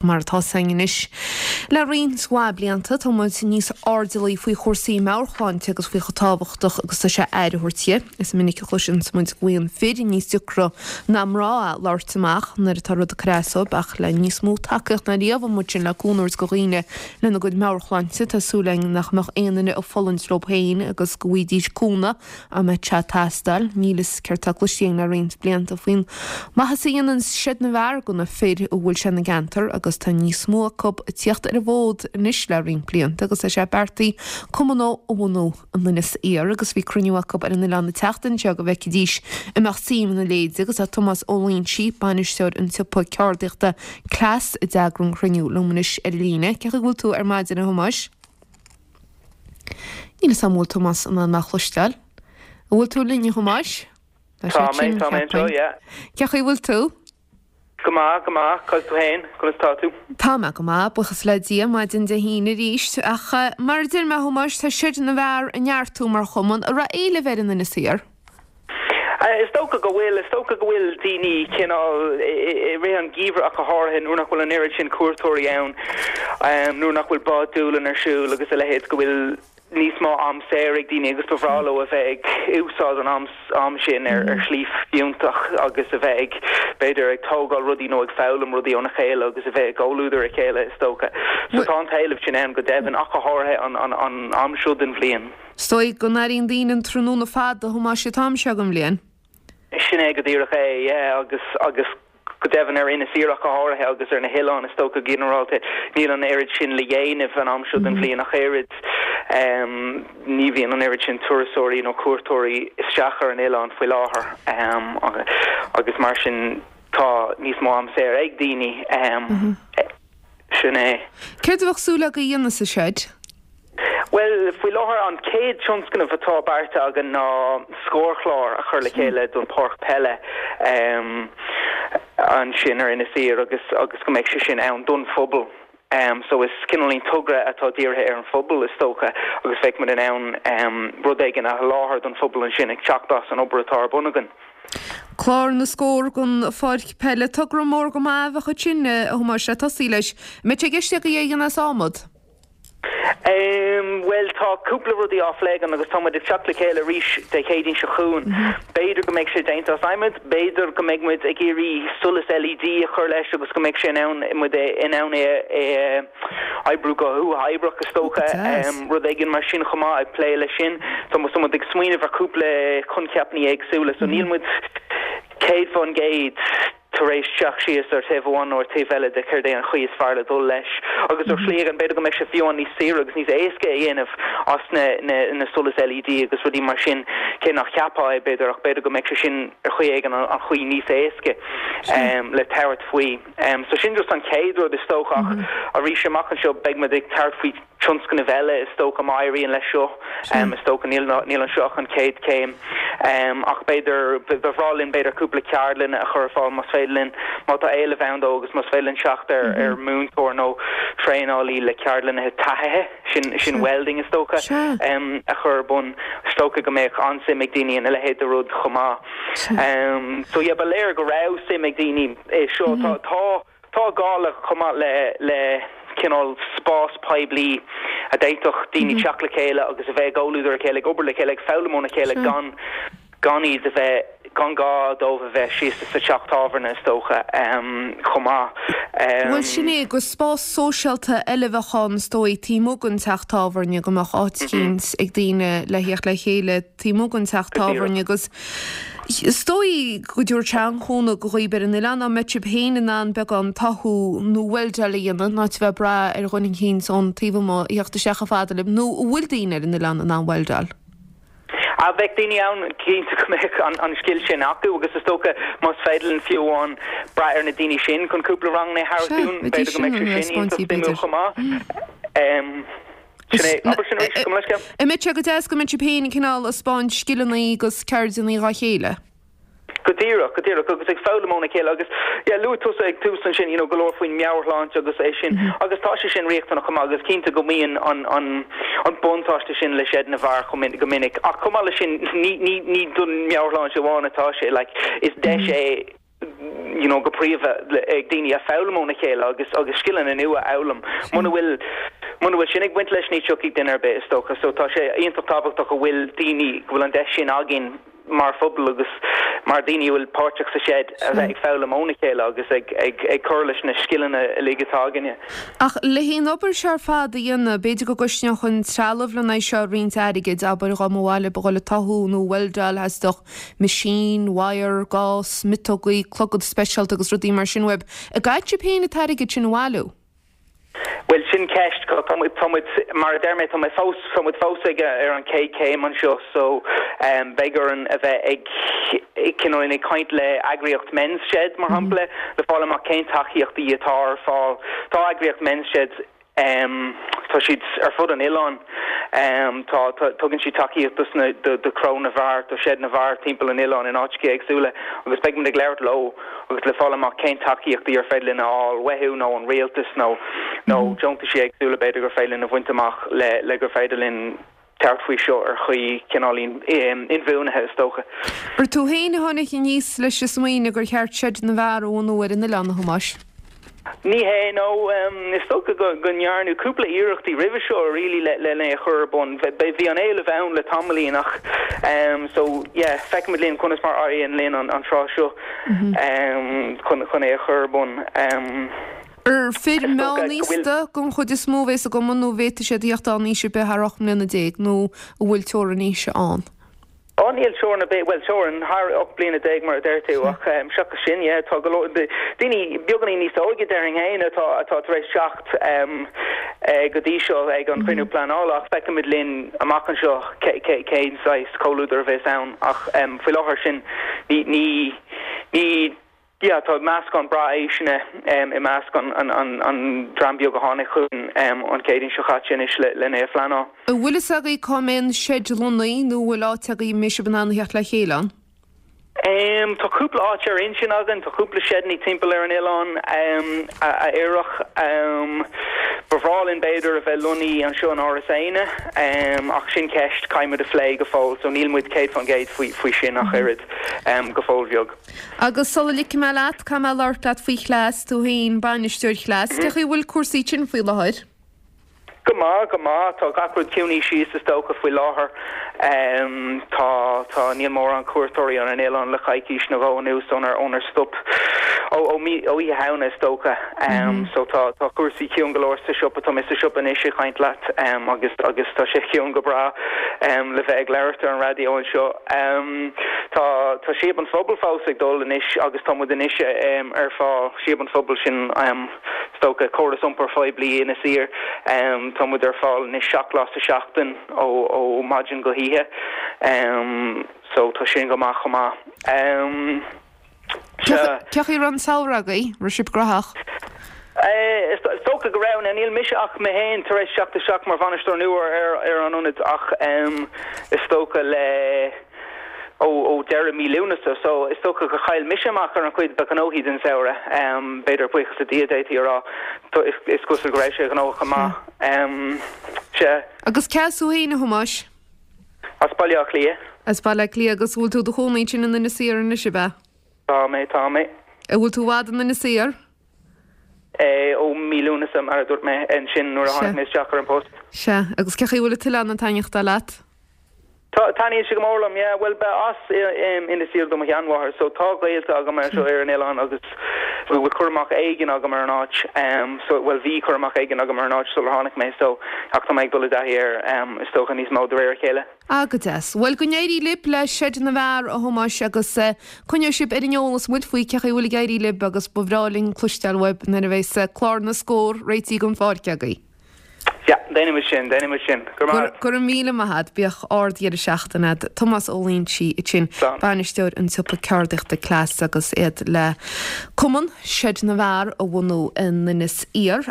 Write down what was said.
Mar atá 's againn anois le roinnt mhaith blianta, tá muid níos airdeallaí faoi chúrsaí meabhairshláinte agus faoi chomh tábhachtach agus tá sé aire a thabhairt di. Is minic a chloiseann muid go bhfaigheann fir níos deacra ná mná labhairt amach nuair atá rud ag cur as dóibh ach le níos mó tacaíocht ná riamh amuigh ansin le cúnamh a thabhairt do dhaoine lena gcuid meabhairshláinte, tá súil againn nach mbeadh aon duine ag fulaingt leo féin agus go bhfaighidís cúnamh. Dá mbeadh sé ag teastáil. Níl 'fhios céard tá cloiste againn le roinnt blianta faoin maitheas a dhéanann Seid na bhFear do na fir a bhfuil sé ina gceantar agus tá níos mó acu ag tíocht ar an bhfód anois le roinnt blianta agus tá sé beartaithe cumann a bhunú in Inis Oírr agus bhí cruinniú acu ar an oileán an tseachtain seo go bhfeicfidís an mbeadh suim ina leithéid agus tá Tomás Ó Loingsigh, bainisteoir an tsiopa ceardaíochta Cleas a d'eagraigh an cruinniú liom anois ar an líne. Cén chaoi a bhfuil tú ar maidin a Thomáis? Níl 'fhios a'm an bhfuil Tomás in ann mé a chloisteáil. An bhfuil tú linn, a Thomáis? Tá sé tinn, tá mé anseo, yeah. Cén chaoi a bhfuil tú? Go maith, go maith. Conas tú féin? Conas tá tú? Tá mé go maith, buíochas le Dia, maidin Dé hAoine arís. Ach mar a deir mé, a Thomáis, tá Seid na bhFear ag neartú mar chumann. An raibh éileamh air in Inis Oírr? Is dócha go bhfuil. Is dócha go bhfuil daoine cineál i rith an gheimhridh ach go háirithe nuair nach bhfuil an oiread sin cuairteoirí ann, nuair nach bhfuil Bád Dúlainn ar siúl agus a leithéid, go bhfuil níos mó am saor ag daoine agus ba bhreá leo a bheith ag úsáid an am sin ar shlí fiúntach agus a bheith ag, b'fhéidir, ag tógáil rudaí nó ag foghlaim rudaí óna chéile agus a bheith i gcomhluadar a chéile, is dócha. So tá an t-éileamh sin ann go deimhin ach go háirithe an am seo den bhliain. Is dóigh go n-airíonn daoine an tráthnóna fada, a Thomáis, an t-am seo den bhliain. Sin é go díreach é, yeah, agus, agus go deimhin ar Inis Oírr ach go háirithe agus ar na hoileáin is dócha go ginearálta, níl an oiread sin le dhéanamh an am seo den bhliain ach oiread. Ní bhíonn an oiread sin turasóirí nó cuairteoirí isteach ar an oileán faoi láthair agus mar sin tá níos mó am saor ag daoine. Sin é. Céard a bheadh súil agaibh a dhéanamh sa seid? Bhuel, faoi láthair an chéad tionscnamh atá beartaithe againn ná scórchlár a chur le chéile don pháirc peile ansin ar Inis Oírr agus agus go mbeidh sé sin ann don phobal. So is cineáilín togra atá dírithe ar an phobal is dócha agus bheadh muid in ann rud éigin a sholáthar don phobal ansin ag teacht as an obair atá ar bun againn. Clár na scór don pháirc peile. Togra mór go maith a bheadh ansin, a Thomáis, le tosaí leis. An mbeidh sé i gceist agaibh é a dhéanamh as adhmad? Bhuel, tá cúpla rudaí á phlé againn agus tá muid ag teacht le chéile arís Dé Céadaoin seo chugainn. B'fhéidir go mbeidh sé déanta as adhmad, b'fhéidir go mbeidh muid ag iarraidh solas LED a chur leis agus go mbeidh sé in ann, muid in ann é a oibriú go huathoibríoch is dócha, rud éigin mar sin chomh maith, ag plé leis sin. Tá muid ag smaoineamh ar chúpla coincheapanna éagsúla so níl muid 100% tar éis teacht síos ar taobh amháin nó ar taobh eile de céard é an chaoi is fearr le dul leis. Agus ar shlí éigin b'fhéidir go mbeidh sé fiú amháin níos saoire agus níos éasca a dhéanamh as na na solais LED agus rudaí mar sin, cé nach cheapfá é b'fhéidir ach b'fhéidir go mbeidh sé sin ar chaoi éigin an chaoi níos éasca le tabhairt faoi. So sin just an chéad rud is dócha ach arís amach anseo beidh muid ag tabhairt faoi tionscnaimh eile is dócha má éiríonn leis seo. Is dócha níl níl anseo ach an chéad chéim ach b'fhéidir ba bhreá linn b'fhéidir cúpla ceardlann a chur ar fáil más féidir linn má tá éileamh ann dó agus más féidir linn teacht ar ar múinteoir nó traenálaí le ceardlanna taithithe sin sin welding is dócha a chur ar bun. Is dócha go mbeadh an-suim ag daoine ina leithéid de rud chomh maith. So yeah ba léir go raibh suim ag daoine i seo. Tá tá tá gá le chomh maith le le cineál spás poiblí a d'fhéadfadh daoine teacht le chéile agus a bheith i gcomhluadar a chéile, ag obair le chéile, ag foghlaim óna chéile gan gan iad a bheith gan gá dóibh a bheith síos sa teach tábhairne is dócha chomh maith. Bhuel sin é, gur spás sóisialta eile a bheadh ann is dóigh taobh amuigh den teach tábhairne, go mbeadh áit eicínt ag daoine le theacht le chéile taobh amuigh den teach tábhairne agus is dóigh go dtabharfadh sé an-chúnamh do dhaoibh ar an oileán dá mbeadh sibh féin in ann beagán tathú nó weildeáil a dhéanamh in áit a bheith ag brath ar dhuine eicínt ón taobh amuigh a theacht isteach chomh fada libh nó an bhfuil daoine ar an oileán in ann weildeáil? Ah, bheadh daoine ann, cinnte go mbeadh an scil sin acu agus is dócha más féidir linn fiú amháin brath ar na daoine sin chun cúpla ranganna a thabhairt dúinn, b'fhéidir go mbeadh sé sin iontach suimiúil chomh maith. Sin é, abair sin arís, gabh mo leithscéal. An mbeadh sé go deas go mbeadh sibh féin cineál ag spáint scileanna agus ceirdeanna dhá chéile? Go díreach, go díreach, agus ag foghlaim óna chéile agus, yeah, luaigh tusa ag tús ansin, you know, go leor faoin meabhairshláinte agus é sin, agus tá sé sin riachtanach chomh maith agus cinnte go mbíonn an, an, an buntáiste sin le Seid na bhFear chomh min, go minic. Ach chomh maith leis sin, ní, ní, ní don meabhairshláinte amháin atá sé, like, is deis é. you know go príomha ag daoine a foghlaim óna chéile agus agus scileanna nua a fhoghlaim. Muna bhfuil muna bhfuil sin ag baint leis ní tiocfaidh duine ar bith is dócha. So tá sé iontach tábhachtach go bhfuil daoine go bhfuil an deis sin againn mar phobal agus mar daoine a bhfuil páirteach sa seid a bheith ag foghlaim óna chéile agus ag ag ag cur leis na scileanna uilig atá againne. Ach le haon obair seo ar fad a dhéanamh, b'fhéidir go gcosnódh an trealamh lena aghaidh seo roinnt airgid, abair dá mba mhaith libh a dhul ag tathú nó weldáil theastódh machine, wire, gás, miotógaí, clogad speisialta agus rudaí mar sin uaibh. An gcaithfidh sibh féin an t-airgead sin a bhailiú? Bhuel, sin ceist. Tá muid, tá muid, mar a deir mé, tá mé fós, tá muid fós ag, ar an chéad chéim anseo so beidh orainn a bheith ag, cineál ag caint le eagraíocht Men's Shed, mar shampla, le fáil amach cén tacaíochtaí atá ar fáil. Tá eagraíocht Men's Shed, tá siad ar fud an oileáin. Tá, tá, tugann siad tacaíocht dos na, do, do chró na bhfear, do seid na bhfear timpeall an oileáin in áiteacha éagsúla agus beidh muid ag labhairt leo agus le fáil amach cén tacaíochtaí ar féidir linn a fháil uathu nó ón rialtas nó nó deontaisí éagsúla b'fhéidir gur féidir linn a bhaint amach le le gur féidir linn tabhairt faoi seo ar chaoi cineáilín inbhuanaithe is dócha. Ar tú féin a tháinig aníos leis an smaoineamh gur cheart seid na bhfear a bhunú ar an oileán, a Thomáis? Ní hé, no. Is dócha go ndearnadh cúpla iarrachtaí roimhe seo really le le é a chur ar bun. Bhí an éileamh ann le tamaillín ach so yeah feicfimid linn conas mar a éiríonn linn an tráth seo chun chun é a chur ar bun. Ar fir meánaosta den chuid is mó a bhéas i gcumann nó an bhféadfaidh siad a theacht ann aois ar bith thar 18 mbliana nó an bhfuil teorainn aoise ann? Á níl teorainn ar bith, bhuel teorainn thar 18 bliana mar a deir tú ach seachas sin yeah tá go leor daoine beagáinín níos óige déarfainn féin atá atá tar éis teacht go dtí seo ag an chruinniú pleanála ach feicfimid linn amach anseo cén saghas comhluadar a bheas ann ach faoi láthair sin ní ní ní Yeah, tá meascán breá aoiseanna i measc an dream beag a tháinig chugainn an Chéadaoin seo chaite anois len é a phleanáil. An bhfuil fhios agaibh cá mbeidh an seid lonnaithe nó an bhfuil áit agaibh a mbeidh sibh in ann a theacht le chéile ann? Tá cúpla áit ar intinn againn, tá cúpla seideanna timpeall ar an oileán a oirfeadh. Ba bhreá linn b'fhéidir a bheith lonnaithe anseo in Áras Éanna ach sin ceist caithfidh muid a phlé go fóill so níl muid 100% faoi sin ach oiread go fóill bheag. Agus sula ligfidh mé leat, caithfidh mé labhairt leat faoi Chleas, tú féin, bainisteoir Chleas. Cé chaoi a bhfuil cúrsaí ansin faoi láthair? Go maith, go maith. Tá gach rud ciúnaithe síos is dócha faoi láthair. Tá, tá, níl mórán cuairteoirí ar an oileán le coicís nó dhó anuas ónar, ónar stop, ó, ó mí, ó Oíche Shamhna is dócha. So tá, tá cúrsaí ciúin go leor sa siopa. Tá mé sa siopa anois ag caint leat agus, agus tá sé ciúin go breá le bheith ag labhairt ar an raidió anseo. Tá tá Síob an Phobail fós ag dul anois agus tá muid anois ar fáil, Síob an Phobail sin is dócha córas iompair phoiblí Inis Oírr, tá muid ar fáil anois 7 lá sa seachtain ó ó maidin go hoíche so tá sin go maith chomh maith. Cé chaoi a raibh an samhradh agaibh? Raibh sibh gnóthach? Is dócha go raibh. Now níl mise ach mé féin tar éis teacht isteach mar bhainisteoir nua ar an ionad ach is dócha le ó ó deireadh mí Lúnasa so is dócha gur chaill mise amach ar an chuid ba ghnóthaí den samhradh. B'fhéidir buíochas le Dia d'fhéadfaí a rá. Is cosúil go raibh sé gnóthach go maith. Sea. Agus cé as thú féin a Thomáis? As Baile Átha Cliath. As Baile Átha Cliath agus bhfuil tú i do chónaí ansin in Inis Oírr anois, ab ea? Tá mé, tá mé. An bhfuil tú i bhfad in Inis Oírr? Eh, ó mí Lúnasa, mar a dúirt mé ansin nuair a tháinig mé isteach ar an post. Sea, agus cé chaoi a bhfuil an t-oileán ag taitneachtáil leat? Tá, taitníonn sé go mór liom, yeah. Bhuel, ba as Inis Oírr do mo sheanmháthair, so tá gaolta agam anseo ar an oileán agus bhfuil cur amach éigin agam ar an áit, so, bhuel, bhí cur amach éigin agam ar an áit sular tháinig mé, so, ach tá mé ag dul i dtaithí air, is dócha, níos mó de réir a chéile. Ah, go deas. Bhuel, go n-éirí libh le Seid na bhFear, a Thomáis, agus coinneoidh sibh ar an eolas muid faoi cé chaoi a bhfuil ag éirí libh agus ba bhreá linn cloisteáil uaibh nuair a bheas clár na scór réitithe don pháirc agaibh. Yeah, déanfaimid sin, déanfaimid sin. Go raibh maith agat. Go raibh míle maith agat. Bíodh ard-dheireadh seachtaine agat. Tomás Ó Loingsigh ansin, bainisteoir an tsiopa ceardaíochta Cleas agus iad le cumann Seid na bhFear a bhunú in Inis Oírr.